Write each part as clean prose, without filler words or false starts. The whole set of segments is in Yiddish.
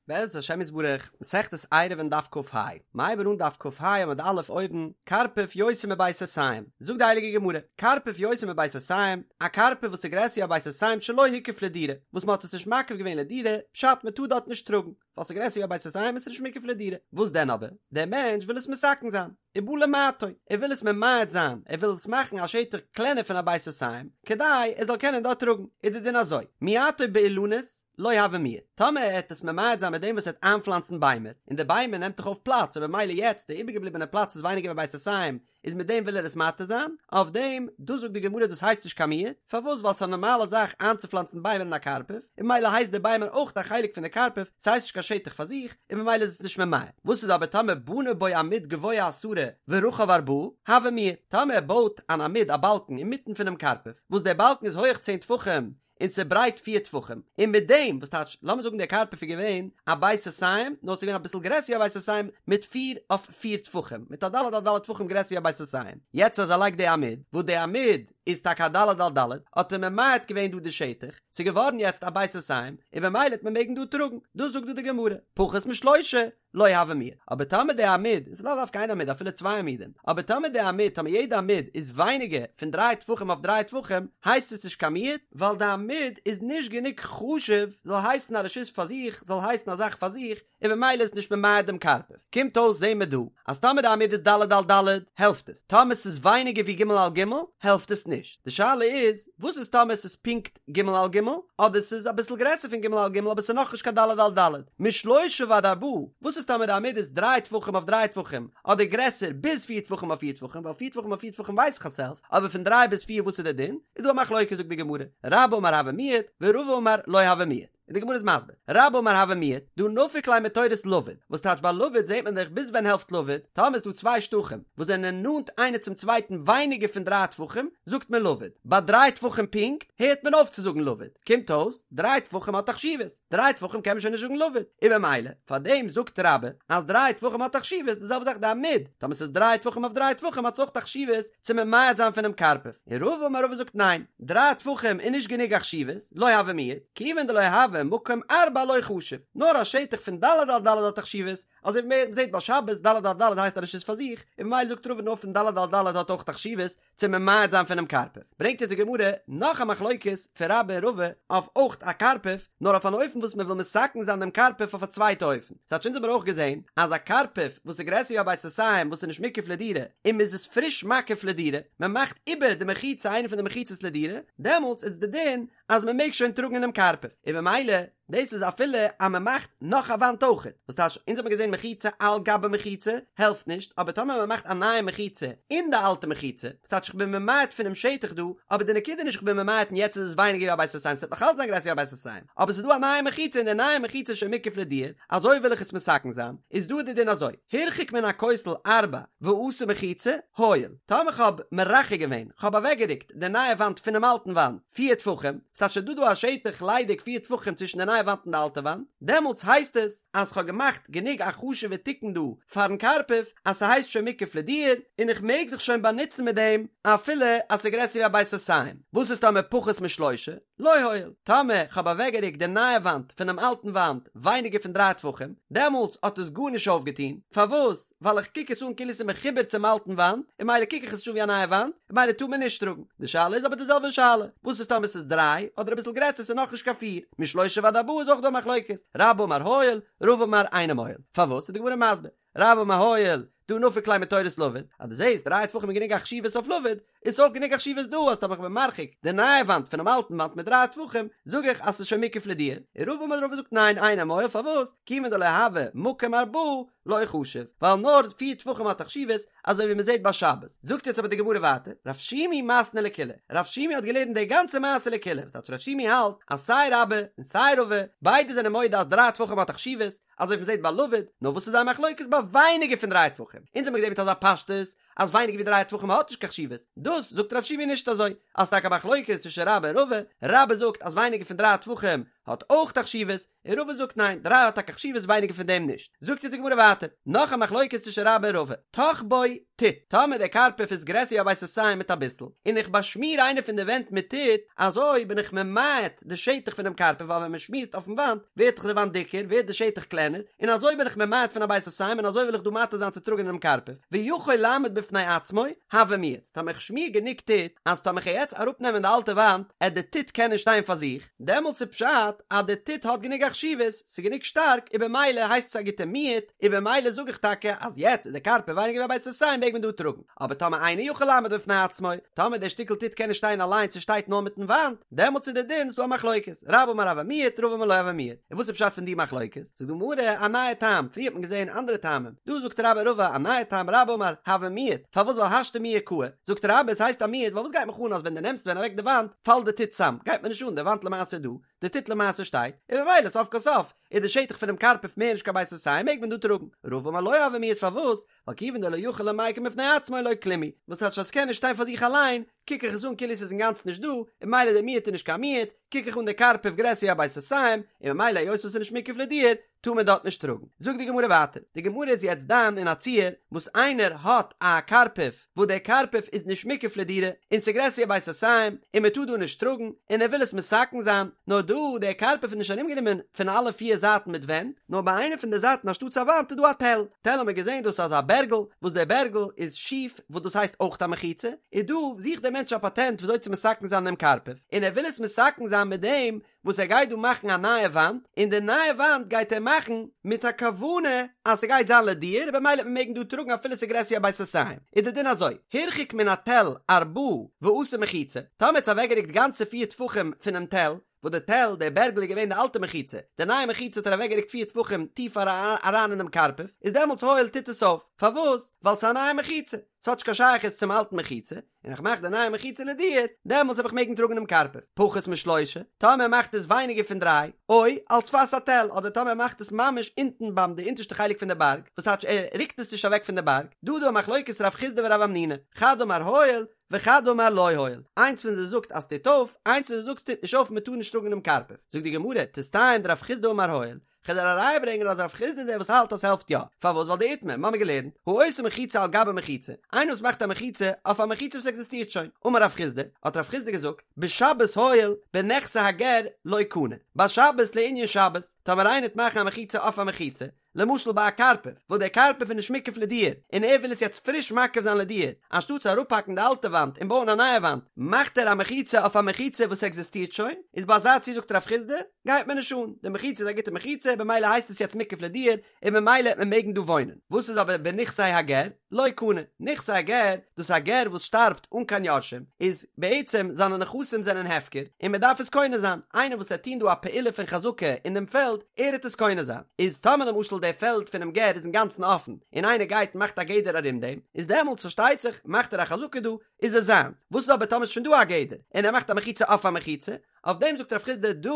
בעזרת השם יתברך, מסכת עירובין דף כ"ה, מ'הייבן אן דף כ"ה עמוד א' אויבן, קרפף יותר מבית סאתים, זאגט די הייליגע גמרא, קרפף יותר מבית סאתים, א קרפף וואס איז גרעסער ווי א בית סאתים שלא הוקף לדירה, וואס מ'האט עס נישט מקיף געווען לדירה, פשט מ'טאר דארט נישט טראגן, ווייל ס'איז גרעסער ווי א בית סאתים איז עס נישט מוקף לדירה, וואס דען אבער? דער מענטש וויל עס מתקן זיין, ובא למעטו, ער וויל עס ממעט זיין, ער וויל עס מאכן א שטח קלענער פון א בית סאתים, כדי ער זאל קענען דארט טראגן, איז די דין אזוי, מיעטו באילנות, לא הוי מיעוט, טאמער ער העט עס ממעט זיין מיט דעם וואס ער העט איינפלאנצן ביימער, און די ביימער נעמט דאך אויף פלאץ און במילא יעצט די איבערגעבליבענע פלאץ איז ווייניגער ווי בית סאתים, איז מיט דעם וויל ער עס מתיר זיין, אויף דעם, דאס זאגט די גמרא דאס הייסט נישט קיין מיעוט, פארוואס ווייל ס'איז א נארמאלע זאך איינצופלאנצן ביימער אין א קרפף, און במילא הייסט די ביימער אויך א חלק פון די קרפף, ס'הייסט נישט קיין שטח פאר זיך, און במילא איז עס נישט ממעט. וואס איז אבער טאמער בנה בו עמוד גבוה עשרה ורחב ארבעה, הוי מיעוט, טאמער ער בויט אן עמוד א באלקן אינמיטן פונעם קרפף, וואס דער באלקן איז הויעך צען טפחים, און ס'ברייט פיר טפחים, און מיט דעם, וואס טייטש, לאמיר זאגן דער קרפף איז געווען א בית סאתים, נאר ס'איז געווען אביסל גרעסער ווי א בית סאתים, מיט פיר אויף פיר טפחים, מיט א ד' על ד' טפחים גרעסער ווי א בית סאתים, יעצט אז ער לייגט די עמוד, וואס די עמוד איז טאקע א ד' על ד', האט ער ממעט געווען דא די שטח, ס'איז געווארן יעצט א בית סאתים, און במילא העט מען מעגן דא טראגן, דאס זאגט דא די גמרא, פחות משלושה, לא הוי מיעוט, אבער טאמער די עמוד, און ס'איז לאו דווקא איין עמוד אפילו צוויי עמודים, אבער טאמער די עמוד, טאמער יעדע עמוד איז ווייניגער פון דריי טפחים אויף דריי טפחים, הייסט עס נישט קיין מיעוט, ווייל די עמוד איז נישט גענוג חשוב זאל הייסן א רשות פאר זיך, זאל הייסן א זאך פאר זיך, און במילא איז נישט ממעט דעם קרפף. קומט אויס זעהן מיר דא, אז טאמער די עמוד איז ד' על ד', העלפט עס, טאמער ס'איז ווייניגער ווי ג' על ג', העלפט עס נישט. די שאלה איז, וואס איז טאמער ס'איז פונקט ג' על ג', אדער ס'איז אביסל גרעסער פון ג' על ג' אבער ס'איז נאכנישט קיין ד' על ד', משלושה ועד ארבעה, וואס איז טאמער די עמוד איז דריי טפחים אויף דריי טפחים, אדער גרעסער ביז פיר טפחים אויף פיר טפחים, ווייל פיר טפחים אויף פיר טפחים ווייס איך אז ס'העלפט, אבער פון דריי ביז פיר וואס איז דער דין? איז דא א מחלוקת זאגט די גמרא, רבה אמר הוי מיעוט, ורבא אמר לא הוי מיעוט. און די גמרא איז מסביר, רבה אמר הוי מיעוט, דהא נפיק ליה מתורת לבוד, וואס טייטש ביי לבוד זעט מען דאך ביז ווען העלפט לבוד, טאמער איז דא צוויי שטחים וואס זענען נאנט איינער צום צווייטן ווייניגער פון דריי טפחים, זאגט מען לבוד, ביי דריי טפחים פונקט הערט מען אויף צו זאגן לבוד, קומט אויס, דריי טפחים האט א חשיבות, דריי טפחים קען מען שוין נישט זאגן לבוד, און במילא, פאר דעם זאגט רבה אז דריי טפחים האט א חשיבות, די זעלבע זאך די עמוד, טאמער ס'איז דריי טפחים אויף דריי טפחים האט עס אויך א חשיבות צו ממעט זיין פונעם קרפף, און רבא אמר רבא זאגט ניין, דריי טפחים איז נישט גענוג א חשיבות, לא הוי מיעוט, כיוון דלא הוי מקום ארבעה לא חשיב, נאר א שטח פון ד' על ד' האט א חשיבות, אזוי ווי מען זעט ביי שבת ד' על ד' הייסט א רשות פאר זיך, און ממילא זאגט רבא נאר פון ד' על ד' האט אויך א חשיבות צו ממעט זיין פונעם קרפף. ברענגט יעצט די גמרא נאך א מחלוקת פון רבה און רבא אויף אויך א קרפף, נאר אויף אן אופן וואס מען וויל מתקן זיין דעם קרפף אויף א צווייטע אופן. ס'טייטש אונז האבן מיר אויך געזען אז א קרפף וואס איז גרעסער ווי א בית סאתים וואס איז נישט מוקף לדירה און מען איז עס פריש מקיף לדירה, מען מאכט איבער די מחיצה איינע פון די מחיצות לדירה, דעמאלטס איז די דין אז מען מעג שוין טראגן אינעם קרפף, און במילא דאס איז אפילו אז מען מאכט נאך א וואנט אויכעט, וואס טייטש אונז האבן געזען מחיצה על גבי מחיצה העלפט נישט, אבער טאמער מען מאכט א נייע מחיצה אין די אלטע מחיצה, וואס טייטש איך בין ממעט פונעם שטח דא, אבער די נקודה איז נישט איך בין ממעט און יעצט איז עס ווייניגער ווי א בית סאתים, ס'וועט נאך אלץ זיין גרעסער ווי א בית סאתים, אבער ס'איז דא א נייע מחיצה און די נייע מחיצה איז שוין מוקף לדירה, אזוי וויל איך עס מתקן זיין, איז דא די דין אזוי, הרחיק מן הכותל ארבע ועשה מחיצה, הועיל, טאמער כ'האב מרחק געווען, כ'האב אוועקגערוקט די נייע וואנט פונעם אלטן וואנט, פיר טפחים, ס'טייטש ס'איז דא דא א שטח ליידיג פיר טפחים צווישן די נייע וואנט און די אלטע וואנט, דעמאלטס הייסט עס אז כ'האב געמאכט גענוג א חשוב'ע תיקון דא פארן קרפף אז ס'הייסט שוין מוקף לדירה און איך מעג זיך שוין באנוצן מיט דעם אפילו אז ס'איז גרעסער ווי א בית סאתים. וואס איז טאמער פחות משלושה? לא הועיל. טאמער כ'האב אוועקגערוקט די נייע וואנט פונעם אלטן וואנט ווייניגער פון דריי טפחים, דעמאלטס האט עס גארנישט אויפגעטון, פארוואס? ווייל איך קוק עס אן כאילו ס'איז מחובר צום אלטן וואנט, און ממילא קוק איך עס נישט אן ווי א נייע וואנט, און ממילא טאר מען נישט טראגן. די שאלה איז אבער די זעלבע שאלה, וואס איז טאמער ס'איז דריי, אדער אביסל גרעסער ס'איז נאכנישט קיין פיר, משלושה ועד ארבעה איז אויך דא א מחלוקת, רבה אמר הועיל, רבא אמר אינו מועיל. פארוואס איז די גמרא מסביר, רבה אמר הועיל, דהא נפיק ליה מתורת לבוד, אז דו זעסט דריי טפחים איז גענוג א חשיבות אויף לבוד, איז אויך גענוג א חשיבות דא אז טאמער כ'בין מרחיק די נייע וואנט פונעם אלטן וואנט מיט דריי טפחים, זאג איך אז ס'איז שוין מוקף לדירה. און רבא אמר רבא זאגט ניין אינו מועיל פארוואס? כיוון דלא הוי מקום ארבעה לא חשיב, ווייל נאר פיר טפחים האט א חשיבות, אזוי ווי מ'זעט ביי שבת. זאגט יעצט אבער די גמרא ווייטער, רב שימי מתני לקולא, רב שימי האט געלערנט די גאנצע מעשה לקולא, וואס טייטש רב שימי האלט אז סיי רבה און סיי רבא ביידע זענען מודה אז דריי טפחים האט א חשיבות, אזוי ווי מ'זעט ביי לבוד, נאר וואס איז זייער מחלוקת ביי ווייניגער פון דריי טפחים? אונז האמיר געזען מיט אזא פשטות אז ווייניגער ווי דריי טפחים האט נישט קיין חשיבות, דאס זאגט רב שימי נישט אזוי, אז ס'טאקע א מחלוקת צווישן רבה און רבא, רבה זאגט אז ווייניגער פון דריי טפחים. האט אויך א חשיבות, און רבא זאגט ניין, דריי האט טאקע חשיבות ווייניגער פון דעם נישט. זאגט יעצט די גמרא ווייטער, נאך א מחלוקת צווישן רבה און רבא, טח בו טיט, טאמער דער קרפף איז גרעסער ווי א בית סאתים מיט אביסל, און איך באשמיר איינע פון די ווענט מיט טיט, אזוי בין איך ממעט די שטח פונעם קרפף ווייל ווען מען שמירט אויפן וואנט ווערט דאך די וואנט דיקער ווערט די שטח קלענער, און אזוי בין איך ממעט פון א בית סאתים און אזוי וויל איך דא מתיר זיין צו טראגן אינעם קרפף, ויכול לעמוד בפני עצמו, הוי מיעוט, טאמער איך שמיר גענוג טיט אז טאמער כ'גיי יעצט אראפנעמען די אלטע וואנט עט די טיט קענען שטיין פאר זיך, דעמאלטס איז פשט אז די טיט האט גענוג א חשיבות, ס'איז גענוג שטארק, און במילא הייסט עס א גוטע מיעוט, און במילא זאג איך טאקע אז יעצט איז די קרפף ווייניגער ווי א בית סאתים מעג מען דא טראגן, אבער טאמער אינו יכול לעמוד בפני עצמו, טאמער דער שטיקל טיט קען נישט שטיין אליינס ס'שטייט נאר מיטן וואנט, דעמאלטס איז די דין ס'דא א מחלוקת, רבה אמר הוי מיעוט רבא אמר לא הוי מיעוט, און וואס איז פשט פון די מחלוקת? זאגט די גמרא א נייע טעם, פריער האט מען געזען אנדערע טעמים, דא זאגט רבה רבא א נייע טעם רבה אמר הוי מיעוט, פארוואס ווייל השתא מיהא קאי, זאגט רבה עס הייסט א מיעוט ווייל וואס גייט מיך אן אז ווען דו נעמסט ווען אוועק די וואנט פאלט די טיט צאם, גייט מיר נישט אן די וואנט למעשה איז דא, די טיט למעשה שטייט, און ממילא סוף כל סוף איז די שטח פונעם קרפף מער נישט קיין בית סאתים מעג מען דא טראגן, רבא אמר לא הוי מיעוט פארוואס? ווייל כיוון דלא יכיל למיקם בפני עצמו לא כלום הוא, וואס טייטש אז ס'קען נישט שטיין פאר זיך אליין, קוק איך עס אן כאילו ס'איז אינגאנצן נישט דא, און ממילא די מיעוט איז נישט קיין מיעוט, קוק איך אן די קרפף גרעסער ווי א בית סאתים, און ממילא היות עס איז נישט מוקף לדיור, טאר מען דארט נישט טראגן. זאגט די גמרא ווייטער, די גמרא איז יעצט דן אין א ציור וואס איינער האט א קרפף וואס דער קרפף איז נישט מוקף לדירה, און ס'איז גרעסער ווי א בית סאתים, און מען טאר דא נישט טראגן, און ער וויל עס מתקן זיין, נאר דא, דער קרפף איז נישט ארומגענומען פון אלע פיר זייטן מיט ווענט, נאר ביי איינע פון די זייטן אנשטאטס א וואנט איז דא א תל, תל האט מען געזען דאס איז אזא בערגל, וואס דער בערגל איז שיף, וואס דאס הייסט אויך א מחיצה, איז דא זוכט דער מענטש א פאטענט וויאזוי צו מתקן זיין דעם קרפף, און ער וויל עס מתקן זיין מיט דעם וואס ער גייט דא מאכן א נייע וואנט, און די נייע וואנט גייט ער מאכן מיט א כוונה אז ס'גייט זיין לדיור, און במילא וועט מען מעגן דא טראגן אפילו ס'איז גרעסער ווי א בית סאתים. איז די דין אזוי, הרחיק מן התל ארבעה ועשה מחיצה, טאמער האט עס אוועקגערוקט גאנצע פיר טפחים פונעם תל, וואס די תל, דער בערגל איז געווען די אלטע מחיצה, די נייע מחיצה האט ער אוועקגערוקט פיר טפחים טיפער אריין אינעם קרפף, איז דעמאלטס הועיל טוט עס אויף, פארוואס? ווייל ס'איז א נייע מחיצה, ס'האט נישט קיין שייכות צום אלטן מחיצה, און איך מאך די נייע מחיצה לדיור, דעמאלטס וועל איך מעגן טראגן דעם קרפף, פחות משלושה, טאמער ער מאכט עס ווייניגער פון דריי, או על שפת התל, אדער טאמער ער מאכט עס ממש אונטן ביים די אונטערשטע חלק פון די בארג, וואס טייטש ער רוקט עס נישט אוועק פון די בארג, דא איז דא א מחלוקת רב חסדא ורב המנונא, חד אמר הועיל, וחד אמר לא הועיל, איינס פון זיי זאגט אז ס'טוט אויף, איינס פון זיי זאגט ס'טוט נישט אויף מען טאר נישט טראגן דעם קרפף, זאגט די גמרא, תסתיים דרב חסדא אמר הועיל, כ'וועל דיר א ראיה ברענגען אז רב חסדא איז דער וואס האלט אז ס'העלפט יא, פארוואס ווייל דאיתמר, מ'האמיר געלערנט, העושה מחיצה על גבי מחיצה, איינער וואס מאכט א מחיצה אויף א מחיצה וואס עקזיסטירט שוין, אמר רב חסדא, האט רב חסדא געזאגט, בשבת הועיל, בנכסי הגר לא קנה, בשבת לענין שבת, טאמער איינער וועט מאכן א מחיצה אויף א מחיצה, למשל ביי א קרפף, וואס דער קרפף איז נישט מוקף לדיור, און ער וויל עס יעצט פריש מקיף זיין לדיור, אנשטאט צו אראפהאקן די אלטע וואנט און בויען א נייע וואנט, מאכט ער א מחיצה אויף א מחיצה וואס עקזיסטירט שוין, איז ביי אזא ציור זאגט רב חסדא, גייט מיר נישט אן, די מחיצה איז א גוטע מחיצה, במילא הייסט עס יעצט מוקף לדיור, און ממילא וועט מען מעגן דא וואוינען. וואס איז אבער בנכסי הגר? לא קנה. נכסי הגר, דאס איז א גר וואס שטארבט אן קיין יורשים, איז בעצם זיינע נכסים זענען הפקר, און מען דארף עס קונה זיין, איינער וואס וועט טון דא א פעולה פון חזקה אין דעם פעלד, ער וועט עס קונה זיין. איז טאמער למשל דער פעלד פונעם גר איז אינגאנצן אפן, און איינער גייט און מאכט א גדר ארום דעם, איז דעמאלטס פארשטייט זיך מאכט ער א חזקה דא, איז עס זיינס. וואס איז אבער טאמער ס'איז שוין דא א גדר, און ער מאכט א מחיצה אויף א מחיצה, אויף דעם זאגט רב חסדא דא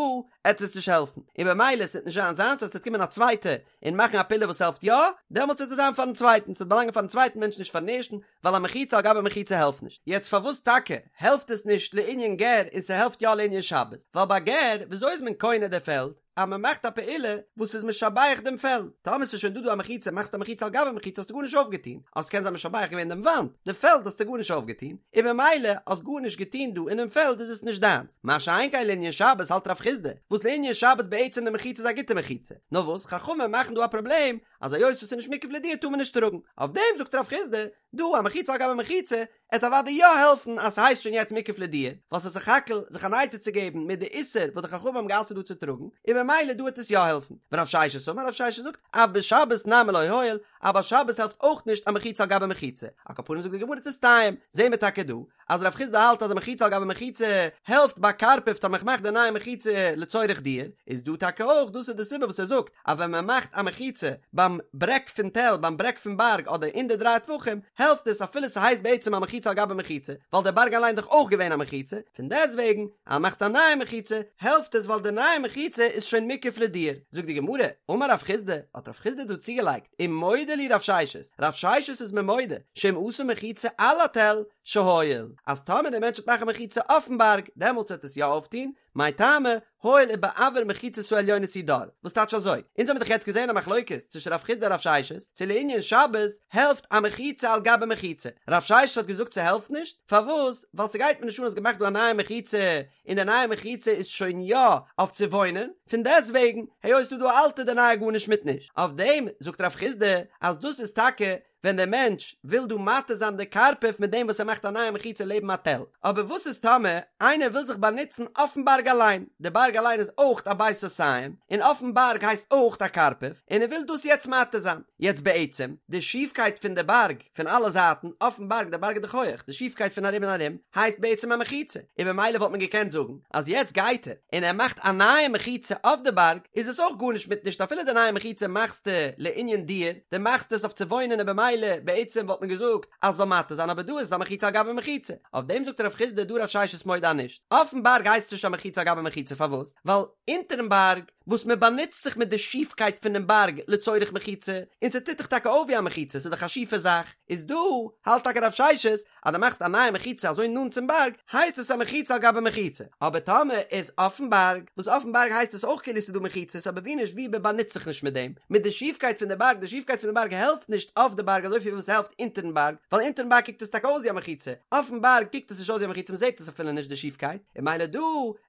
עט עס נישט העלפן, און במילא עס וועט נישט זיין זיינס אז עס וועט קומען א צווייטע און מאכן א פעולה וואס העלפט יא, דעמאלטס וועט עס זיין פארן צווייטן, ס'וועט באלאנגען פארן צווייטן מענטש נישט פארן ערשטן, ווייל א מחיצה על גבי מחיצה העלפט נישט. יעצט פארוואס טאקע העלפט עס נישט לענין גר און ס'העלפט יא לענין שבת? ווייל ביי גר וויאזוי איז מען קונה די פעלד? אז מען מאכט א פעולה וואס איז משבח דעם פעלד, טאמער ס'איז שוין דא דא א מחיצה, מאכסט א מחיצה על גבי מחיצה האסטו גארנישט אויפגעטון, אז ס'קען זיין משבח געווען דעם וואנט, די פעלד האסטו גארנישט אויפגעטון, און במילא האסט גארנישט געטון דא אינעם פעלד איז עס נישט דיינס, מה שאין כן לענין שבת האלט רב חסדא, וואס לענין שבת בעצם די מחיצה איז א גוטע מחיצה, נאר וואס חכמים מאכן דא א פראבלעם אז היות וואס ס'איז נישט מוקף לדיור טאר מען נישט טראגן, אויף דעם זאגט רב חסדא, דא א מחיצה על גבי מחיצה, עט אוודאי יא העלפן אז ס'הייסט שוין יעצט מוקף לדיור, ווייל ס'איז סך הכל זיך אן עצה צו געבן מיט די איסור וואס די חכמים האבן גע'אסר'ט דא צו טראגן, און במילא דא וועט עס יא העלפן. ורב ששת אמר, רב ששת זאגט, אף בשבת נמי לא הועיל, אז ביי שבת העלפט אויך נישט א מחיצה על גבי מחיצה. על כל פנים זאגט די גמרא תסתיים, זעהן מיר טאקע דא, אז רב חסדא האלט אז א מחיצה על גבי מחיצה העלפט ביי קרפף טאמער כ'מאך די נייע מחיצה לצורך דיור, איז דא טאקע אויך דאס איז די סיבה וואס ער זאגט אז ווען מען מאכט א מחיצה ביים ברעג פון תל ביים ברעג פון בארג אדער אין די דריי טפחים העלפט עס אפילו ס'הייסט בעצם א מחיצה על גבי מחיצה ווייל דער בארג אליין איז דאך אויך געווען א מחיצה, פון דעסטוועגן אז מ'מאכט א נייע מחיצה העלפט עס ווייל די נייע מחיצה איז שוין מוקף לדיור. זאגט די גמרא, אמר רב חסדא, האט רב חסדא דא צוגעלייגט, ומודה לי רב ששת, רב ששת איז מיר מודה, שאם עשה מחיצה על התל, שהועיל, אז טאמער דער מענטש וועט מאכן א מחיצה אויפן בארג, דעמאלטס וועט עס יא אויפטון, מאי טעמא, הואיל ובאויר מחיצות העליונות הוא דר, וואס טייטש אזוי? אונז האבן דאך יעצט געזען א מחלוקת צווישן רב חיסדא און רב ששת, צו לענין שבת העלפט א מחיצה על גבי מחיצה, רב ששת האט געזאגט ס'העלפט נישט, פארוואס? ווייל ס'גייט מיר נישט אן האסט געמאכט דא א נייע מחיצה, און די נייע מחיצה איז שוין יא אויף צו וואוינען, פון דעסטוועגן היות ס'דא דא א אלטע די נייע גארנישט מיט נישט, אויף דעם זאגט רב חיסדא אז דאס איז טאקע ווען דער מענטש וויל דא מתיר זיין די קרפף מיט דעם וואס ער מאכט א נייע מחיצה לעבן א תל, אבער וואס איז טאמער איינער וויל זיך באנוצן אויפן בארג אליין, די בארג אליין איז אויך א בית סאתים, און אויפן בארג הייסט אויך א קרפף, און ער וויל דאס יעצט מתיר זיין, יעצט בעצם די שיפקייט פון די בארג פון אלע זייטן אויפן בארג, די בארג איז דאך הויעך, די שיפקייט פון ארום און ארום הייסט בעצם א מחיצה, און במילא וואלט מען געקענט זאגן אז יעצט גייט ער און ער מאכט א נייע מחיצה אויף די בארג, איז עס אויך גארנישט מיט נישט אפילו די נייע מחיצה מאכסטו לענין דיור, דו מאכסט עס אויף צו וואוינען און במילא בעצם וואלט מען געזאגט אז עס זאל מתיר זיין אבער דא איז עס א מחיצה על גבי מחיצה, אויף דעם זאגט רב חיסדא דא רב ששת מודה אז נישט, אויפן בארג הייסט עס נישט א מחיצה על גבי מחיצה פארוואס? ווייל אונטערן בארג וואס מען באנוצט זיך מיט די שיפקייט פונעם בארג לצורך מחיצה, און ס'טוט דאך טאקע אויף ווי א מחיצה, ס'איז דאך א שיפע זאך, איז דא האלט טאקע רב ששת אז דו מאכסט א נייע מחיצה אזוי נאנט צום בארג, הייסט עס א מחיצה על גבי מחיצה, אבער טאמער איז אויפן בארג, וואס אויפן בארג הייסט עס אויך כאילו ס'איז דא מחיצות אבער ווי נישט ווי מען באנוצט זיך נישט מיט דעם, מיט די שיפקייט פון די בארג, די שיפקייט פון די בארג העלפט נישט אויף די בארג אזויפיל ווי ס'העלפט אונטערן בארג, ווייל אונטערן בארג קוקט עס טאקע אויס ווי א מחיצה, אויפן בארג קוקט עס נישט אויס ווי א מחיצה מ'זעט עס אפילו נישט די שיפקייט, און ממילא דא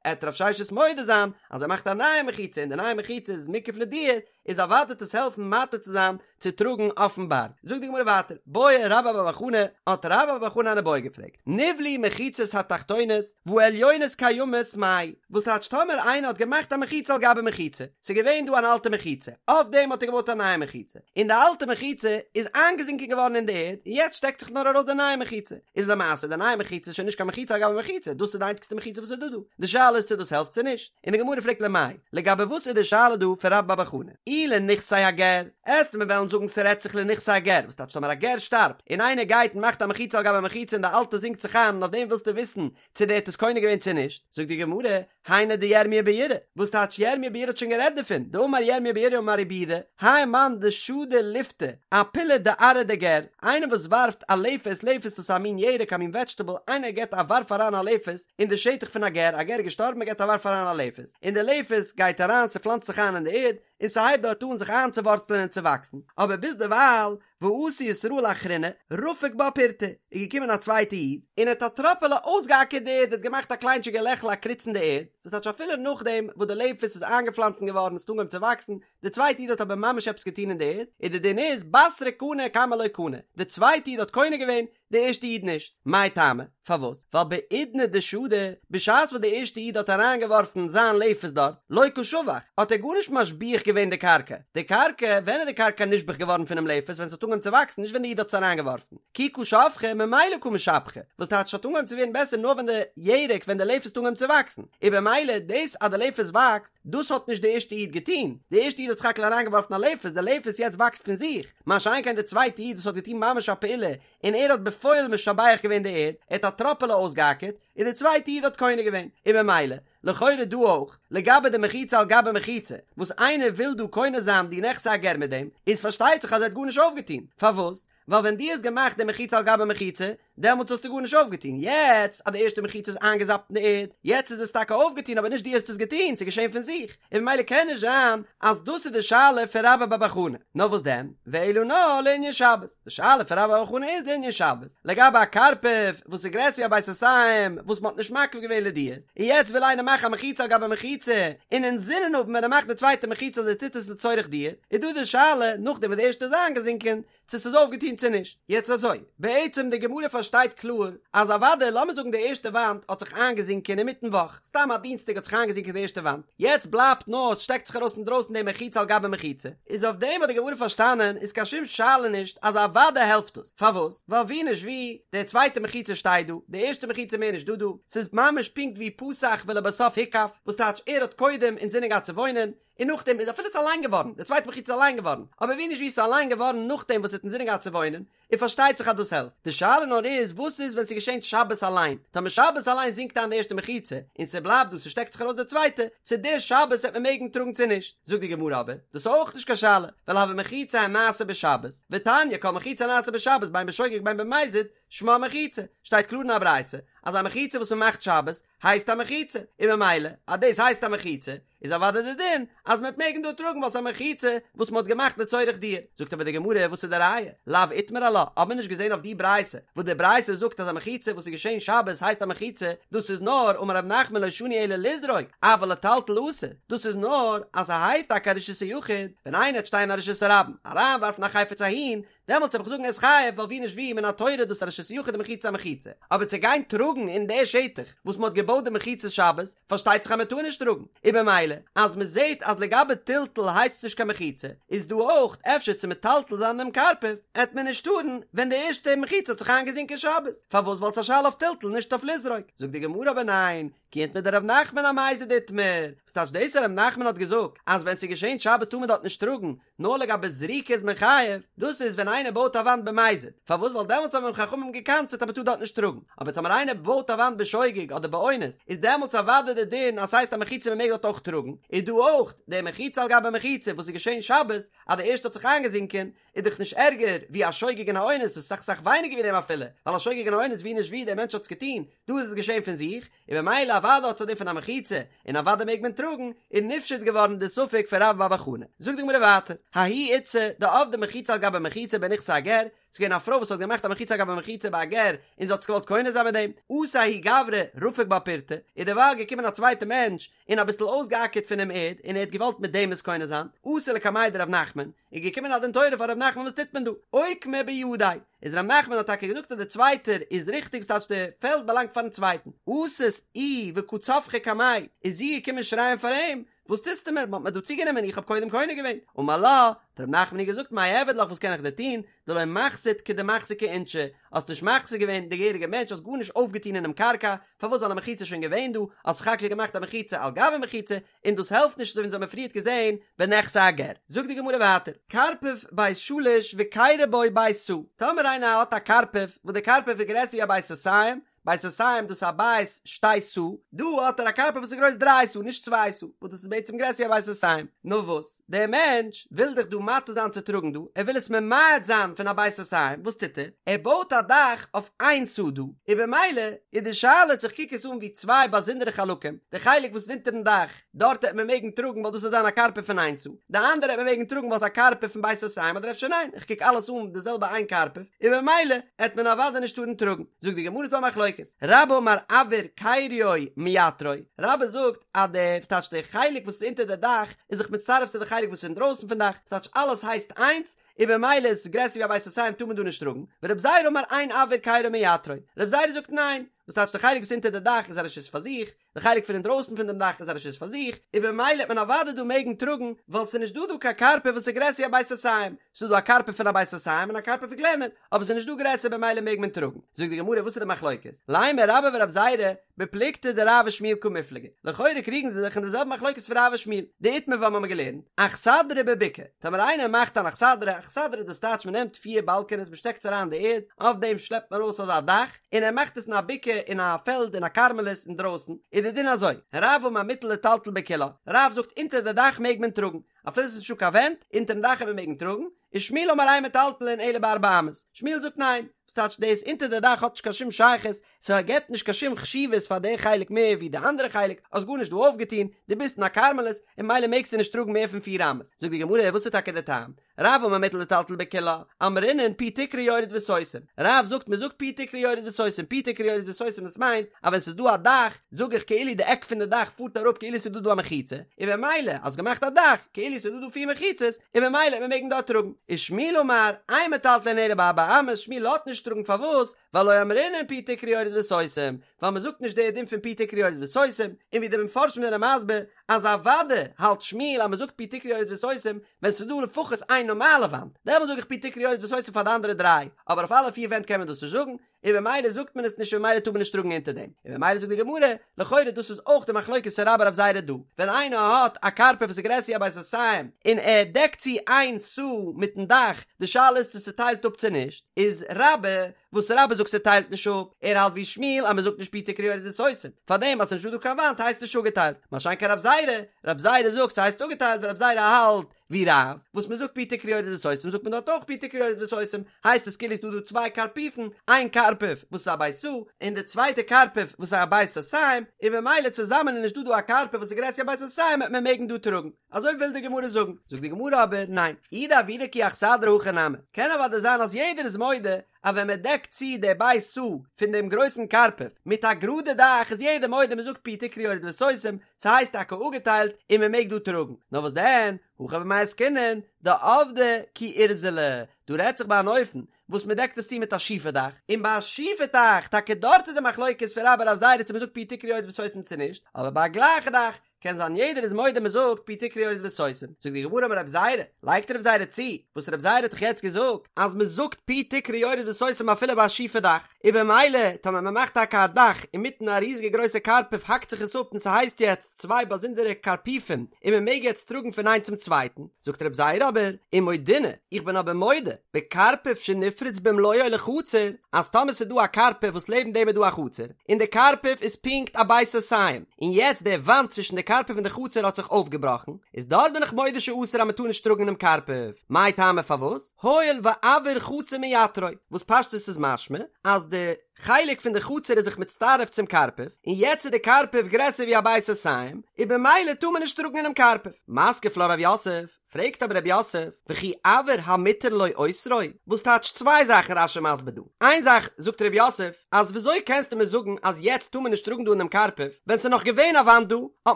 עט רב ששת מודה זיין אז ער מאכט א נייע מחיצה און די נייע מחיצה איז מוקף לדיור, איז אוודאי וועט עס העלפן מתיר צו זיין צו טראגן אויפן בארג. זאגט די גמרא ווייטער, בעי רבה בר בר חנה, האט רבה בר בר חנה אן איבעיא געפרעגט, נבלעו מחיצות התחתונות והעליונות קיימות מאי, וואס טייטש טאמער איינער האט געמאכט א מחיצה על גבי מחיצה, ס'איז געווען דא אן אלטע מחיצה, אויף דעם האט ער געבויט א נייע מחיצה, און די אלטע מחיצה איז איינגעזינקען געווארן אין די ערד, און יעצט שטעקט זיך נאר ארויס די נייע מחיצה, איז למעשה די נייע מחיצה איז שוין נישט קיין מחיצה על גבי מחיצה, דאס איז די איינציגסטע מחיצה וואס איז דא דא, די שאלה איז צו דאס העלפט צו נישט. און די גמרא פרעגט למאי, לגבי וואס איז די שאלה דא פון רבה בר בר חנה? אי לנכסי הגר, עסט מיר וועלן זאגן ס'רעדט זיך לנכסי הגר, וואס טייטש טאמער א גר שטארבט, און איינער גייט און מאכט א מחיצה על גבי מחיצה און די אלטע זינקט זיך איין און אויף דעם ווילסטו וויסן צו דער האט עס קונה געווען צו נישט, זאגט די גמרא, היינו דירמיה ביראה, וואס טייטש ירמיה ביראה האט שוין גערעדט דערפון, דאמר ירמיה ביראה אמר רבי יהודה, האי מאן דשדי לפתא, אפילא דארעא דגר, איינער וואס ווארפט א לפת, לפת איז א מין ירק א מין וועדזשטעבל, איינער געבט א ווארף אריין א לפת, אין די שטח פון א גר, א גר איז געשטארבן מען געבט א ווארף אריין א לפת, און די לפת גייט אריין ס'פלאנצט זיך איין אין די ערד, און ס'הייבט דארט אן זיך איינצואווארצלען און צו וואקסן, אבער ביזדערווייל, ואתא ישראל אחרינא, רפק בה פורתא, איז געקומען א צווייטע איד, און האט א טראפעלע אויסגעאקערט די ערד, האט געמאכט א קליינטשיגע לעכל א קריץ אין די ערד, דאס טייטש אפילו נאכדעם וואס די לפת איז איינגעפלאנצן געווארן, ס'האט אנגעהויבן צו וואקסן, די צווייטע איד האט אבער ממש עפעס געטון אין די ערד, און די דין איז, בתרא קני קמא לא קני, די צווייטע איד האט קונה געווען, די ערשטע איד נישט. מאי טעמא? פארוואס? ווייל בעידנא דשדי, בשעת וואס די ערשטע איד האט אריינגעווארפן זיין לפת דארט, לא קא שבח, האט ער גארנישט משביח געווען די קרקע. די קרקע, ווען איז די קרקע נשבח געווארן פונעם לפת? ווען ס'האט אנגעהויבן צו וואקסן, נישט ווען די איד האט עס אריינגעווארפן. כי קא שבחא, ממילא קא משבחא. וואס טייטש ס'האט אנגעהויבן צו ווערן בעסער נאר ווען די ירק, ווען די לפת האט אנגעהויבן צו וואקסן. און במילא, דאס אז די לפת וואקסט, דאס האט נישט די ערשטע איד געטון. די ערשטע איד האט סך הכל אריינגעווארפן א לפת, די לפת יעצט וואקסט פון זיך. מה שאין כן די צווייטע איד וואס האט געטון ממש א פעולה און ער האט בפועל משבח געווען די ערד, ער האט א טראפעלע אויסגעאקערט, און די צווייטע איד האט קונה געווען, און במילא, לכאורה דא אויך, לגבי די מחיצה על גבי מחיצה, וואס איינער וויל דא קונה זיין די נכסי הגר מיט דעם, איז פארשטייט זיך אז ער האט גארנישט אויפגעטון, פארוואס? ווייל ווען דו האסט געמאכט די מחיצה על גבי מחיצה, דעמאלטס האסטו גארנישט אויפגעטון, יעצט אז די ערשטע מחיצה איז איינגעזאפט אין די ערד, יעצט איז עס טאקע אויפגעטון אבער נישט דו האסט עס געטון, ס'איז געשען פון זיך, און ממילא קען נישט זיין אז דאס איז די שאלה פון רבה בר בר חנה, נאר וואס דען, ואלא נאר לענין שבת, די שאלה פון רבה בר בר חנה איז לענין שבת, לגבי א קרפף וואס איז גרעסער ווי א בית סאתים וואס מ'האט נישט מקיף געווען לדיור, און יעצט וויל איינער מאכן א מחיצה על גבי מחיצה, און אינזינען האבן ווען ער מאכט די צווייטע מחיצה אז ער טוט עס לצורך דיור, איז דא די שאלה נאכדעם וואס די ערשטע איז איינגעזינקען, צו ס'איז אויפגעטון צו נישט. יעצט אזוי, בעצם די גמרא פארשטייט קלאר אז אוודאי לאמיר זאגן די ערשטע וואנט האט זיך איינגעזינקען אינמיטן וואך, סתם א דינסטאג האט זיך איינגעזינקען די ערשטע וואנט, יעצט בלייבט נאר עס שטעקט זיך ארויס אינדרויסן די מחיצה על גבי מחיצה, איז אויף דעם האט די גמרא פארשטאנען איז קיין שום שאלה נישט אז אוודאי העלפט עס, פארוואס? ווייל ווי נישט ווי, די צווייטע מחיצה שטייט דא, די ערשטע מחיצה מער נישט דא דא, ס'איז ממש פונקט ווי פתח ולבסוף הוקף, וואס טייטש ער האט קודם אינזינען געהאט צו וואוינען, און נאכדעם איז אפילו ס'איז אליין געווארן, די צווייטע מחיצה איז אליין געווארן, אבער ווי נישט ווי ס'איז אליין געווארן נאכדעם וואס ער האט אינזינען געהאט צו וואוינען, און פארשטייט זיך אז דאס העלפט. די שאלה נאר איז וואס איז ווען ס'געשענט שבת אליין, טאמער שבת אליין זינקט איין די ערשטע מחיצה, און ס'בלייבט דא ס'שטעקט זיך ארויס די צווייטע, צו די שבת וועט מען מעגן טראגן צו נישט. זאגט די גמרא אבער, דאס איז אויך נישט קיין שאלה, ווייל הוה מחיצה הנעשה בשבת, ותניא כל מחיצה הנעשה בשבת בין בשוגג בין במזיד, שמה מחיצה, שטייט קלאר אין א ברייתא אז א מחיצה וואס מ'מאכט שבת הייסט א מחיצה, און ממילא אז דאס הייסט א מחיצה איז אוודאי די דין אז מ'וועט מעגן דא טראגן ווייל ס'איז א מחיצה וואס מ'האט געמאכט לצורך דיור. זאגט אבער די גמרא וואס איז די ראיה? לאו איתמר עלה, האט מען נישט געזען אויף די ברייתא וואס די ברייתא זאגט אז א מחיצה וואס איז געשען שבת הייסט א מחיצה, דאס איז נאר אמר רב נחמן לא שנו אלא לזרוק, אבל לטלטל אסור, דאס איז נאר אז ס'הייסט טאקע א רשות היחיד, ווען איינער וועט שטיין אין א רשות הרבים אריינווארפן א חפץ אהין, דעמאלטס וועל איך זאגן ער איז חייב ווייל ווי נישט ווי מן התורה איז דאס א רשות יחיד די מחיצה א מחיצה אבער צו גיין טראגן אין די שטח וואס מ'האט געבויט די מחיצה שבת פארשטייט זיך אז מ'טאר נישט טראגן און במילא אז מ'זעט אז לגבי טלטול הייסט עס נישט קיין מחיצה איז דא אויך אפשר צו מטלטל זיין דעם קרפף עט מען נישט טארן ווען די ערשטע מחיצה האט זיך איינגעזינקען שבת פארוואס ווייל ס'איז א שאלה אויף טלטול נישט אויף לזרוק זאגט די גמרא אבער ניין כי איתמר דרב נחמן אמזיד איתמר וואס טייטש דאס אז רב נחמן האט געזאגט אז ווען ס'איז געשען שבת טאר מען דארט נישט טראגן נאר לגבי זריקה איז מען חייב, דאס איז ווען איינער בויט א וואנט במזיד, פארוואס ווייל דעמאלטס האבן אים חכמים גע'קנס'עט אז מען טאר דארט נישט טראגן, אבער טאמער איינער בויט א וואנט בשוגג אדער באונס איז דעמאלטס אוודאי די דין אז ס'הייסט א מחיצה מען מעג דארט אויך טראגן, איז דא אויך די מחיצה על גבי מחיצה וואס איז געשען שבת אז די ערשטע האט זיך איינגעזינקען איז דאך נישט ערגער ווי א שוגג און א אונס, ס'איז סאך סאך ווייניגער ווי דעם אפילו, ווייל א שוגג און א אונס ווי נישט ווי דער מענטש האט עס געטון, דא איז עס געשען פון זיך, און במילא אוודאי האט עס א דין פון א מחיצה, און אוודאי מעג מען טראגן, איז נפשט געווארן די ספק פון רבה בר בר חנה. זאגט די גמרא ווייטער, ההיא איתתא דעבדה מחיצה על גבי מחיצה בנכסי הגר, ס'איז געווען א פרוי וואס האט געמאכט א מחיצה על גבי מחיצה ביי א גר, און זי האט עס געוואלט קונה זיין מיט דעם, אתא ההוא גברא רפק בה פורתא, איז דערווייל געקומען א צווייטע מענטש, און אביסל אויסגעאקערט פונעם ערד, און ער האט געוואלט מיט דעם עס קונה זיין, אתא לקמיה דרב נחמן, איז געקומען א דין תורה פאר רב נחמן וואס טוט מען דא? אוקמה בידיה, איז רב נחמן האט טאקע געזאגט אז דער צווייטער איז ריכטיג ס'טייטש די פעלד באלאנגט פארן צווייטן, אתת איהי וקא צווחא קמיה, איז זי געקומען שרייען פאר אים, וואס טוסטו מיר, מ'האט מיר דא צוגענומען, איך האב קודם קונה געווען, אמר לה, האט רב נחמן איר געזאגט מאי אעביד לך וואס קען איך דיר טון, דלא מחזית כדמחזיקי אינשי, האסט נישט מחזיק געווען די געהעריגע מענטש, האסט גארנישט אויפגעטון אינעם קרקע, פארוואס ווייל א מחיצה איז שוין געווען דא, האסט סך הכל געמאכט א מחיצה על גבי מחיצה, און דאס העלפט נישט אזוי ווי אונז האבן פריערט געזען בנכסי הגר. זאגט די גמרא ווייטער, קרפף בית שלש וכרו בו בית סאה, טאמער איינער האט א קרפף וואס די קרפף איז גרעסער ווי א בית סאתים, בית סאתים דאס איז א בית שתי סאה, דא האט ער א קרפף וואס איז גרויס דריי סאה נישט צוויי סאה, וואס דאס איז בעצם גרעסער ווי א בית סאתים, נאר וואס, דער מענטש וויל דאך דא מתיר זיין צו טראגן דא, ער וויל עס ממעט זיין פון א בית סאתים, וואס טוט ער? ער בויט א דאך אויף איין סאה דא, און במילא איז די שאלה צו איך קוק עס אן ווי צוויי באזונדערע חלקים, די חלק וואס איז אונטערן דאך, דארט העט מען מעגן טראגן ווייל דאס וועט זיין א קרפף פון איין סאה, די אנדערע העט מען מעגן טראגן ווייל ס'איז א קרפף פון בית סאתים אדער אפשר ניין, איך קוק אלעס אן די זעלבע איין קרפף, און במילא העט מען אוודאי נישט טארן טראגן. זאגט די גמרא ס'דא א מחלוקת, רבה אמר אויר כריו מייתרו, רבה זאגט אז די, ס'טייטש די חלק וואס איז אונטער די דאך איז זיך מצטרף צו די חלק וואס איז אינדרויסן פון דאך, ס'טייטש אלעס הייסט איינס, און במילא איז עס גרעסער ווי א בית סאתים טאר מען דא נישט טראגן, ורב זירא אמר אין אויר כרו מייתרו, רב זירא זאגט ניין, וואס טייטש די חלק וואס איז אונטער די דאך איז א רשות פאר זיך, די חלק פון אינדרויסן פון דעם דאך איז א רשות פאר זיך, און במילא העט מען אוודאי דא מעגן טראגן, ווייל ס'איז נישט דא דא קיין קרפף וואס איז גרעסער ווי א בית סאתים, ס'איז דא דא א קרפף פון א בית סאתים און א קרפף פון קלענער, אבער ס'איז נישט דא גרעסער במילא מעג מען טראגן. זאגט די גמרא וואס איז די מחלוקת? לימא רבה ורב זירא בפלוגתא דרב ושמואל קמיפלגי, לכאורה קריגן זיי זיך אין די זעלבע מחלוקת פון רב ושמואל, דאיתמר וואס מ'האמיר געלערנט, אכסדרה בבקעה, טאמער איינער מאכט אן אכסדרה, אכסדרה דאס טייטש מ'נעמט פיר באלקענעס מ'שטעקט עס אריין אין די ערד, אויף דעם שלעפט מען ארויס אזא דאך, און ער מאכט עס אין א בקעה אין א פעלד אין א כרמלית אינדרויסן, איז די דין אזוי, רב אמר מותר לטלטל בכולה, רב זאגט אונטער די דאך מעג מען טראגן, אפילו עס איז נישטא קיין ווענט, אונטערן דאך וועט מען מעגן טראגן, ושמואל אמר אין מטלטלין אלא בארבע אמות, שמואל זאגט ניין, וואס טייטש דאס אונטער די דאך האט נישט קיין שום שייכות, ס'געט נישט קיין שום חשיבות פאר די חלק מער ווי די אנדערע חלק, האסט גארנישט דא אויפגעטון, דו ביסט אין א כרמלית, און ממילא מעגסטו נישט טראגן מער פון פיר אמות, זאגט די גמרא וואס איז טאקע די טעם? רב אמר מותר לטלטל בכולה, אמרינן פי תקרה יורד וסותם, רב זאגט מען זאגט פי תקרה יורד וסותם, פי תקרה יורד וסותם דאס מיינט אז ווען ס'איז דא א דאך זאג איך כאילו די עק פון די דאך פארט אראפ כאילו ס'איז דא דא א מחיצה, און במילא האסט געמאכט א דאך כאילו ס'איז דא דא פיר מחיצות, און במילא וועט מען מעגן דארט טראגן. ושמואל אמר, אין מטלטלין אלא בארבע אמות, שמואל לאזט נישט טראגן פארוואס? ווייל לא אמרינן פי תקרה יורד וסותם, ווייל מען זאגט נישט די דין פון פי תקרה יורד וסותם, און ווי די מפרשים זענען מסביר. אז אוודאי האלט שמואל אז מ'זאגט פי תקרה יורד וסותם ווען ס'איז דא לפחות איין נארמאלע וואנט, דעמאלט זאג איך פי תקרה יורד וסותם פאר די אנדערע דריי, אבער אויף אלע פיר ווענט קען מען דאס נישט זאגן, און במילא זאגט מען עס נישט און במילא טאר מען נישט טראגן אונטער דעם, און במילא זאגט די גמרא, לכאורה דאס איז אויך די מחלוקת פון רבה רב זירא דא, ווען איינער האט א קרפף וואס איז גרעסער ווי א בית סאתים און ער דעקט צו איין סאה מיטן דאך, די שאלה איז צו ס'טיילט אפ צו נישט, איז רבה וואס רבה זאגט ס'טיילט נישט אפ, ער האלט ווי שמואל אז מ'זאגט נישט פי תקרה יורד וסותם, פארדעם אז ס'נישט דא דא קיין וואנט הייסט נישט אפגעטיילט, מה שאין כן רב זירא, רב זירא זאגט ס'הייסט אפגעטיילט ווייל רב זירא האלט ווי רב, וואס מ'זאגט פי תקרה יורד וסותם זאגט מען דארט אויך פי תקרה יורד וסותם, הייסט עס כאילו ס'דא דא צוויי קרפיפן, איין קרפף וואס איז א בית סאה, און די צווייטע קרפף וואס איז א בית סאתים, און במילא צוזאמען איז נישט דא דא א קרפף וואס איז גרעסער ווי א בית סאתים וועט מען מעגן דא טראגן. אזוי וויל די גמרא זאגן, זאגט די גמרא אבער ניין, אי דעבידא כי אכסדרה הכי נמי, קען אוודאי זיין אז יעדער איז מודה אז ווען מען דעקט צו די בית סאה פון דעם גרויסן קרפף מיט א גראדע דאך איז יעדער מודה מען זאגט פי תקרה יורד וסותם, ס'הייסט טאקע אפגעטיילט און מען מעג דא טראגן, נאר וואס דען, הכא במאי עסקינן, דעבדא כי עורזלא, דא רעדט זיך ביי אן אופן וואס מען דעקט עס צו מיט א שיפע דאך, און ביי א שיפע דאך, טאקע דארט איז די מחלוקת פון רבה רב זירא צו מען זאגט פי תקרה יורד וסותם צו נישט, אבער ביי א גלייכע דאך קען זיין יעדער איז מודה מען זאגט פי תקרה יורד וסותם, זאגט די גמרא אמר רב זירא, לייגט רב זירא צו, וואס רב זירא האט דאך יעצט געזאגט אז מען זאגט פי תקרה יורד וסותם אפילו ביי א שיפע דאך, און במילא טאמער מען מאכט טאקע א דאך אינמיטן א ריזיגע גרויסע קרפף האקט זיך עס אפ און ס'הייסט יעצט צוויי באזונדערע קרפיפים און מען מעג יעצט טראגן פון איינס צום צווייטן, זאגט רב זירא אבער, ומודינא, איך בין אבער מודה, בקרפף שנפרץ במלואו לחצר, אז טאמער ס'איז דא א קרפף וואס לעבן דעם איז דא א חצר, און די קרפף איז פונקט א בית סאתים, און יעצט די וואנט צווישן די קרפף און די חצר האט זיך אויפגעבראכן, איז דארט בין איך מודה שאסור אז מ'טאר נישט טראגן אינעם קרפף, מאי טעמא פארוואס? הואיל ואויר חצר מייתרו, וואס פשטות איז משמע אז די חלק פון די חצר איז זיך מצטרף צום קרפף, און יעצט איז די קרפף גרעסער ווי א בית סאתים, און במילא טאר מען נישט טראגן אינעם קרפף. מתקיף לה רב יוסף, פרעגט אבער רב יוסף, וכי אויר המותר לו אוסרו? וואס טייטש צוויי זאכן רש"י מסביר דא, איין זאך זאגט רב יוסף, אז וויאזוי קענסטו מיר זאגן אז יעצט טאר מען נישט טראגן דא אינעם קרפף, ווען ס'איז נאך געווען א וואנט דא, האט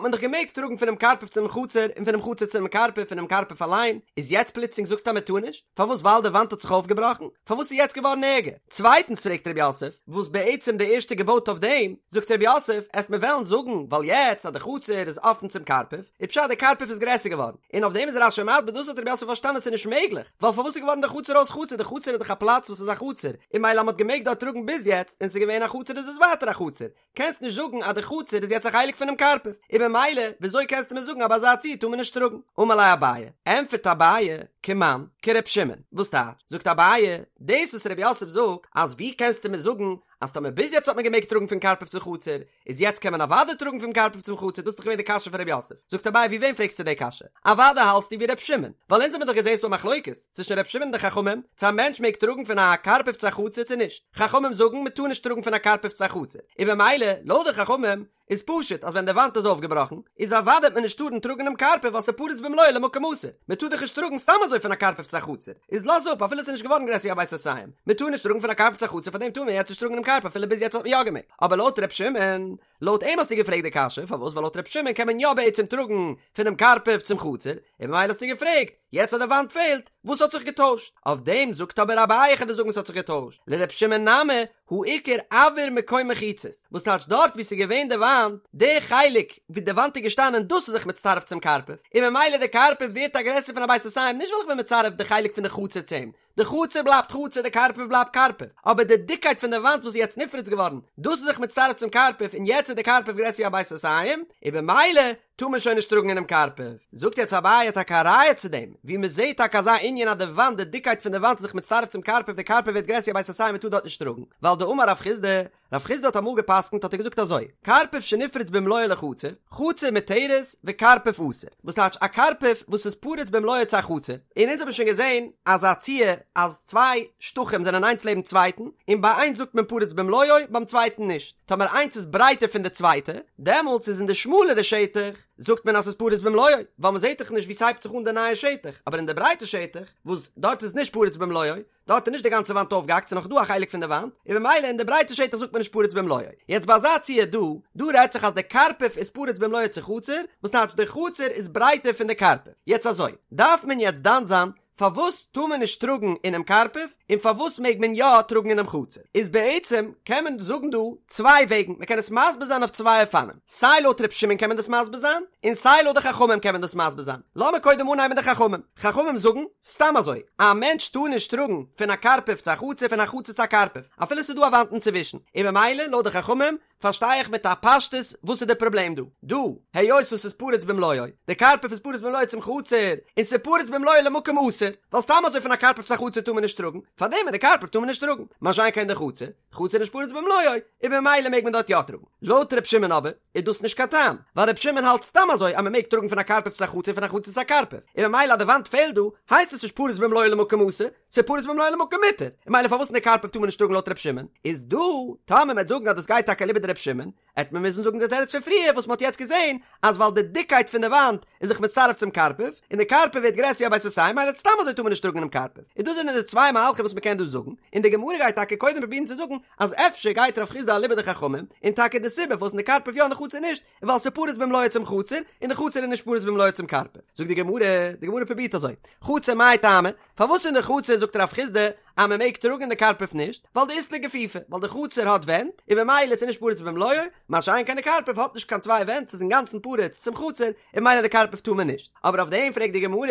מען דאך געמעגט טראגן פונעם קרפף צום חצר און פונעם חצר צום קרפף פונעם קרפף אליין, איז יעצט פלוצלינג זאגסטו אז מען טאר נישט? פארוואס ווייל די וואנט האט זיך אויפגעבראכן? פארוואס איז יעצט געווארן ערגער? צווייטנס פרעגט רב יוסף, וואס בעצם די ערשטע געבויט אויף דעם, זאגט רב יוסף, עסט מיר וועלן זאגן ווייל יעצט אז די חצר איז אפן צום קרפף, איז פשט די קרפף איז גרעסער געווארן, און אויף דעם איז רש"י מסביר דאס האט רב יוסף פארשטאנען ס'איז נישט מעגליך, ווייל פארוואס איז געווארן די חצר אויס חצר, די חצר איז דאך א פלאץ וואס איז א חצר, און מילא אז מ'האט געמעגט דארט טראגן ביז יעצט און ס'איז געווען א חצר איז עס ווייטער א חצר, קענסט נישט זאגן אז די חצר איז יעצט א חלק פונעם קרפף, און במילא וויאזוי קענסטו מיר זאגן אז ביי אזא ציור טאר מען נישט טראגן? אמר ליה אביי, ענטפערט אביי, כמאן, כר' שמעון, וואס טייטש? זאגט אביי, דאס וואס ר' יוסף זאגט אז ווי קענסטו מיר זאגן אז טאמער ביז יעצט האט מען געמעגט טראגן פון קרפף צו חצר, איז יעצט קען מען אוודאי טראגן פון קרפף צום חצר, דאס איז דאך געווען די קשיא פון ר' יוסף, זאגט אביי ווי וועם פרעגסטו די קשיא? אוודאי האלטסטו ווי ר' שמעון, ווייל אונז האבן דאך געזעהן ס'דא א מחלוקת, צווישן ר' שמעון און די חכמים, צו א מענטש מעג טראגן פון א קרפף צו א חצר צו נישט. חכמים זאגן מען טאר נישט טראגן פון א קרפף צו א חצר, און במילא, לויט די חכמים, איז פשוט אז ווען די וואנט איז אויפגעבראכן, איז אוודאי וועט מען נישט טארן טראגן אינעם קרפף ווייל ס'איז פרוץ במלואו למקום אסור, מען טאר דאך נישט טראגן סתם אזוי פון א קרפף צו א חצר, איז לאז אפ אפילו ס'איז נישט געווארן גרעסער ווי א בית סאתים, מען טאר נישט טראגן פון א קרפף צו א חצר פארדעם טאר מען יעצט נישט טראגן אינעם קרפף אפילו ביז יעצט האט מען יא געמעגט, אבער לויט ר' שמעון, לויט אים האסטו געפרעגט די קשיא, פארוואס? ווייל לויט ר' שמעון קען מען יא בעצם טראגן פונעם קרפף צום חצר, און במילא האסטו געפרעגט, יעצט אז די וואנט פעלט, וואס האט זיך געטוישט? אויף דעם זאגט אבער אביי איך וועל דיר זאגן וואס האט זיך געטוישט, לר' שמעון נמי הא איכא אויר מקום מחיצות, וואס טייטש דארט וואו ס'איז געווען די וואנט, די חלק וואו די וואנט איז געשטאנען דאס איז זיך מצטרף צום קרפף, און ממילא די קרפף ווערט א גרעסער פון א בית סאתים נישט ווייל איך בין מצרף די חלק פון די חצר צו אים, די חצר בלייבט חצר די קרפף בלייבט קרפף, אבער די דיקקייט פון די וואנט וואס איז יעצט נפרץ געווארן, דאס איז זיך מצטרף צום קרפף און יעצט איז די קרפף גרעסער ווי א בית סאתים, און במילא טאר מען שוין נישט טראגן אינעם קרפף. זאגט יעצט אביי טאקע א ראיה צו דעם, ווי מען זעט טאקע אזא ענין אז די וואנט, די דיקקייט פון די וואנט איז זיך מצטרף צום קרפף, די קרפף ווערט גרעסער ווי א בית סאתים מען טאר דארט נישט טראגן, ווייל דאמר רב חסדא, רב חסדא האט אמאל געפסקנט האט ער געזאגט אזוי, קרפף שנפרץ במלואו לחצר, חצר מותרת וקרפף אסור, וואס טייטש א קרפף וואס איז פרוץ במלואו צו א חצר, און אונז האבן שוין געזען אזא ציור אז צוויי שטחים זענען איינס לעבן צווייטן, און ביי איינס זאגט מען פרוץ במלואו ביים צווייטן נישט, טאמער איינס איז ברייטער פון די צווייטע, דעמאלטס איז אין די שמאלערע שטח זאגט מען אז ס'איז פרוץ במלואו, ווייל מ'זעט דאך נישט ווי ס'הייבט זיך אן די נייע שטח, אבער אין די ברייטע שטח, וואס דארט איז נישט פרוץ במלואו, דארט איז נישט די גאנצע וואנט אויפגעהאקט ס'איז נאך דא א חלק פון די וואנט, און במילא אין די ברייטע שטח זאגט מען נישט פרוץ במלואו. יעצט ביי אזא ציור דא, דא רעדט זיך אז די קרפף איז פרוץ במלואו צו חצר, וואס טייטש די חצר איז ברייטער פון די קרפף. יעצט אזוי, דארף מען יעצט דן זיין. פארוואס טאר מען נישט טראגן אינעם קרפף און פארוואס מעג מען יא טראגן אינעם חצר? איז בעצם קען מען זאגן דא צוויי וועגן, מען קען עס מסביר זיין אויף צוויי אופנים, סיי לויט ר' שמעון קען מען דאס מסביר זיין, און סיי לויט די חכמים קען מען דאס מסביר זיין. לאמיר קודם אנהייבן מיט די חכמים. חכמים זאגן, סתם אזוי, א מענטש טאר נישט טראגן פון א קרפף צו א חצר פון א חצר צו א קרפף, אפילו ס'איז דא א וואנט אינצווישן, און ממילא לויט די חכמים פארשטיי איך מיט א פשטות וואס איז די פראבלעם דא. דא, היות עס איז פרוץ במלואו, די קרפף איז פרוץ במלואו צום חצר, און ס'איז פרוץ במלואו למקום אסור, ווייל סתם אזוי פון א קרפף צו א חצר טאר מען נישט טראגן, פארדעם אין די קרפף טאר מען נישט טראגן, מה שאין כן די חצר, די חצר איז נישט פרוץ במלואו, און במילא מעג מען דארט יא טראגן. לויט ר' שמעון אבער, איז דאס נישט קיין טעם, ווייל ר' שמעון האלט סתם אזוי אז מען מעג טראגן פון א קרפף צו א חצר פון א חצר צו א קרפף, און ממילא אז די וואנט פעלט דא, הייסט עס נישט פרוץ במלואו למקום אסור, ס'איז פרוץ במלואו למקום מותר, און ממילא פארוואס אין די קרפף טאר מען נישט טראגן לויט ר' שמעון? איז דא, טאמער מ'עט זאגן אז דאס גייט טאקע אליבא דר' שמעון, עט מען מוזן זאגן די תירוץ פון פריער וואס מ'האט יעצט געזען, אז ווייל די דיקקייט פון די וואנט איז זיך מצטרף צום קרפף, און די קרפף ווערט גרעסער ווי א בית סאתים, ממילא סתם אזוי טאר מען נישט טראגן אינעם קרפף. און דאס זענען די צוויי מהלכים וואס מ'קען דא זאגן, און די גמרא גייט טאקע קודם פרובירן צו זאגן אז אפשר גייט רב חסדא אליבא דחכמים, און טאקע די סיבה פארוואס אין די קרפף יא און די חצר נישט, איז ווייל ס'איז פרוץ במלואו צום חצר, און די חצר איז נישט פרוץ במלואו צום קרפף. זאגט די גמרא, די גמרא פרובירט אזוי, חצר מאי טעמא, פארוואס אין די חצר זאגט רב חסדא אז מען מעג טראגן אין די קרפף נישט, ווייל דאית ליה גיפופי, ווייל די חצר האט ווענט, און במילא איז נישט פרוץ במלואו, מה שאין כן די קרפף האט נישט קיין צוויי ווענט ס'איז אינגאנצן פרוץ צום חצר, און ממילא די קרפף טאר מען נישט. אבער אויף דעם פרעגט די גמרא,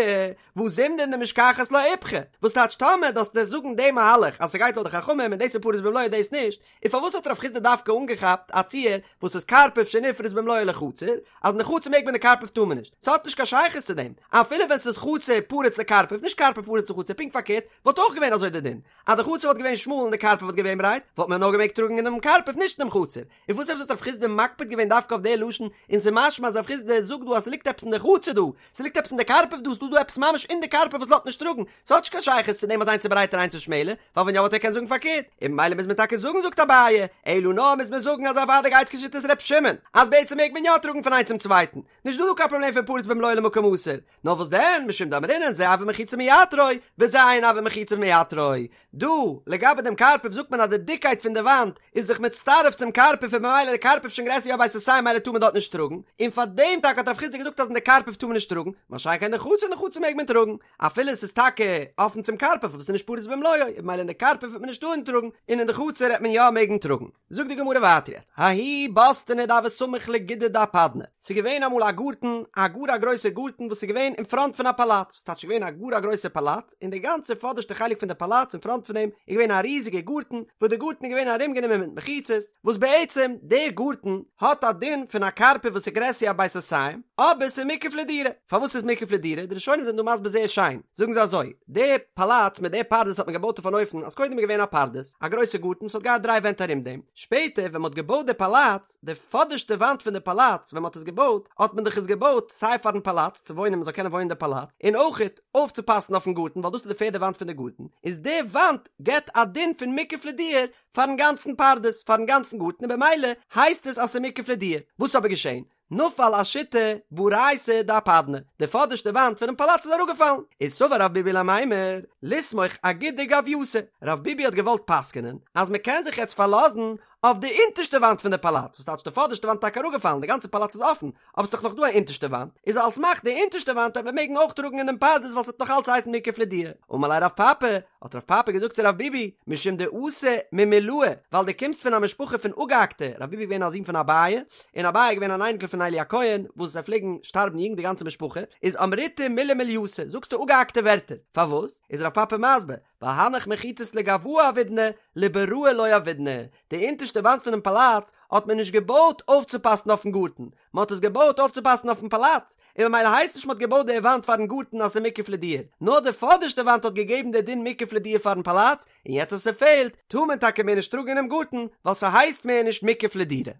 והא זימנין דמשכחת לה איפכא, וואס טייטש טאמער דאס דאס זאגן די מהלך אז ס'גייט לויט די חכמים און דאס איז פרוץ במלואו דאס נישט, און פארוואס האט רב חסדא דווקא אנגעכאפט א ציור וואס איז קרפף שנפרץ במלואו לחצר, אז אין די חצר מעג מען די קרפף טאר מען נישט? ס'האט נישט קיין שייכות צו דעם, אפילו ווען ס'איז חצר פרוץ לקרפף, נישט קרפף פרוץ לחצר, פונקט פארקערט, וואלט אויך געווען אזוי די דין, אז די חצר וואלט געווען שמאל און די קרפף וואלט געווען ברייט, וואלט מען נאר געמעגט טראגן אינעם קרפף נישט אינעם חצר, און וואס עפעס האט רב חסדא מקפיד געווען דווקא אויף די לשון, און ס'איז משמע אז רב חסדא זאגט דא אז ס'ליגט עפעס אין די חצר דא, ס'ליגט עפעס אין די קרפף דא, ס'דא דא עפעס ממש אין די קרפף וואס לאזט נישט טראגן, ס'האט נישט קיין שייכות צו דעם אז איינס איז ברייטער איינס איז שמעלער, ווייל ווען יא וואלט ער געקענט זאגן פארקערט, און ממילא מוז מען טאקע זאגן זאגט אביי, אלא נאר מוז מען זאגן אז אוודאי גייט כשיטת ר' שמעון, אז בעצם מעג מען יא טראגן פון איינס צום צווייטן, נישט דא דא קיין פראבלעם פון פרוץ במלואו למקום אסור, נאר וואס דען, משום דאמרינן זה הוה מחיצה מייתרו, וזה אין הוה מחיצה מייתרו. דא, לגבי דעם קרפף זאגט מען אז די דיקקייט פון די וואנט איז זיך מצטרף צום קרפף און ממילא די קרפף שוין גרעסער ווי א בית סאתים ממילא טאר מען דארט נישט טראגן, און פאר דעם טאקע האט רב חסדא געזאגט אז אין די קרפף טאר מען נישט טראגן, מה שאין כן אין די חצר אין די חצר מעג מען טראגן, אפילו עס איז טאקע אפן צום קרפף אבער עס איז נישט פרוץ במלואו, און ממילא אין די קרפף וועט מען נישט טארן טראגן, און אין די חצר וועט מען יא מעגן טראגן. זאגט די גמרא ווייטער יעצט, ההוא בוסתנא דהוה סמיך לגודא דאפדנא, ס'איז געווען אמאל א גארטן, א גאר א גרויסע גארטן וואס איז געווען אין פראנט פון א פאלאץ, וואס טייטש געווען א גאר א גרויסע פאלאץ, און די גאנצע פאדערשטע חלק פון די פאלאץ אין פראנט פון דעם איז געווען א ריזיגע גארטן, וואס די גארטן איז געווען ארומגענומען מיט מחיצות, וואס בעצם דער גארטן האט א דין פון א קרפף וואס איז גרעסער ווי א בית סאתים, אבער ס'איז מוקף לדירה. פארוואס איז מוקף לדירה? די ראשונים זענען דא מסביר זייער שיין, זאגן זיי אזוי, די פאלאץ מיט די פרדס האט מען געבויט אויף אן אופן אז קודם איז געווען א פרדס, א גרויסע גארטן וואס האט געהאט דריי ווענט ארום דעם, שפעטער ווען מען האט געבויט די פאלאץ, די פאדערשטע וואנט פון די פאלאץ ווען מען האט עס געבויט, האט מען דאך עס געבויט סיי פארן פאלאץ צו וואוינען מען זאל קענען וואוינען אין די פאלאץ, און אויכעט אויפצופאסן אויפן גארטן ווייל דאס איז די פערדע וואנט פון די גארטן, איז די וואנט געבט א דין פון מוקף לדירה פארן גאנצן פרדס, פארן גאנצן גארטן און במילא הייסט עס אז ס'איז מוקף לדירה. וואס איז אבער געשען? נפל אשיתא בריתא דאפדנא, די פאדערשטע וואנט פונעם פאלאץ איז אראפגעפאלן, איז סבר רב ביבי למימר, לסמוך אגודא גוויאתא, רב ביבי האט געוואלט פסק'נען אז מען קען זיך יעצט פארלאזן אויף די אונטערשטע וואנט פון די פאלאץ, וואס טייטש די פאדערשטע וואנט איז טאקע אראפגעפאלן, די גאנצע פאלאץ איז אפן, אבער ס'איז דאך נאך דא א אונטערשטע וואנט, איז על סמך די אונטערשטע וואנט וועט מען מעגן אויך טראגן אין דעם פרדס ווייל ס'וועט נאך אלץ הייסן מוקף לדירה. אמר ליה רב פפא, האט רב פפא געזאגט צו רב ביבי, משום דאתא ממולאי, ווייל דו קומסט פון א משפחה פון אפגעהאקטע, רב ביבי איז געווען א זון פון אביי, און אביי איז געווען אן אייניקל פון עלי הכהן, וואס זיי פלעגן שטארבן יונג די גאנצע משפחה, איז אמריתו מילי מולייתא, זאגסטו אפגעהאקטע ווערטער, פארוואס? איז רב פפא מסביר, ווייל הנך מחיצות לגואי עבידנא, לבראי לא עבידנא, די אונטערשטע וואנט פונעם פאלאץ האט מען נישט געבויט אויפצופאסן אויפן גארטן, מען האט עס געבויט אויפצופאסן אויפן פאלאץ, און ממילא הייסט נישט מען האט געבויט די וואנט פארן גארטן אז ס'איז מוקף לדירה, נאר די פאדערשטע וואנט האט געגעבן די דין מוקף לדירה פארן פאלאץ, און יעצט אז ס'פעלט, טאר מען טאקע מער נישט טראגן אינעם גארטן, ווייל ס'הייסט מער נישט מוקף לדירה.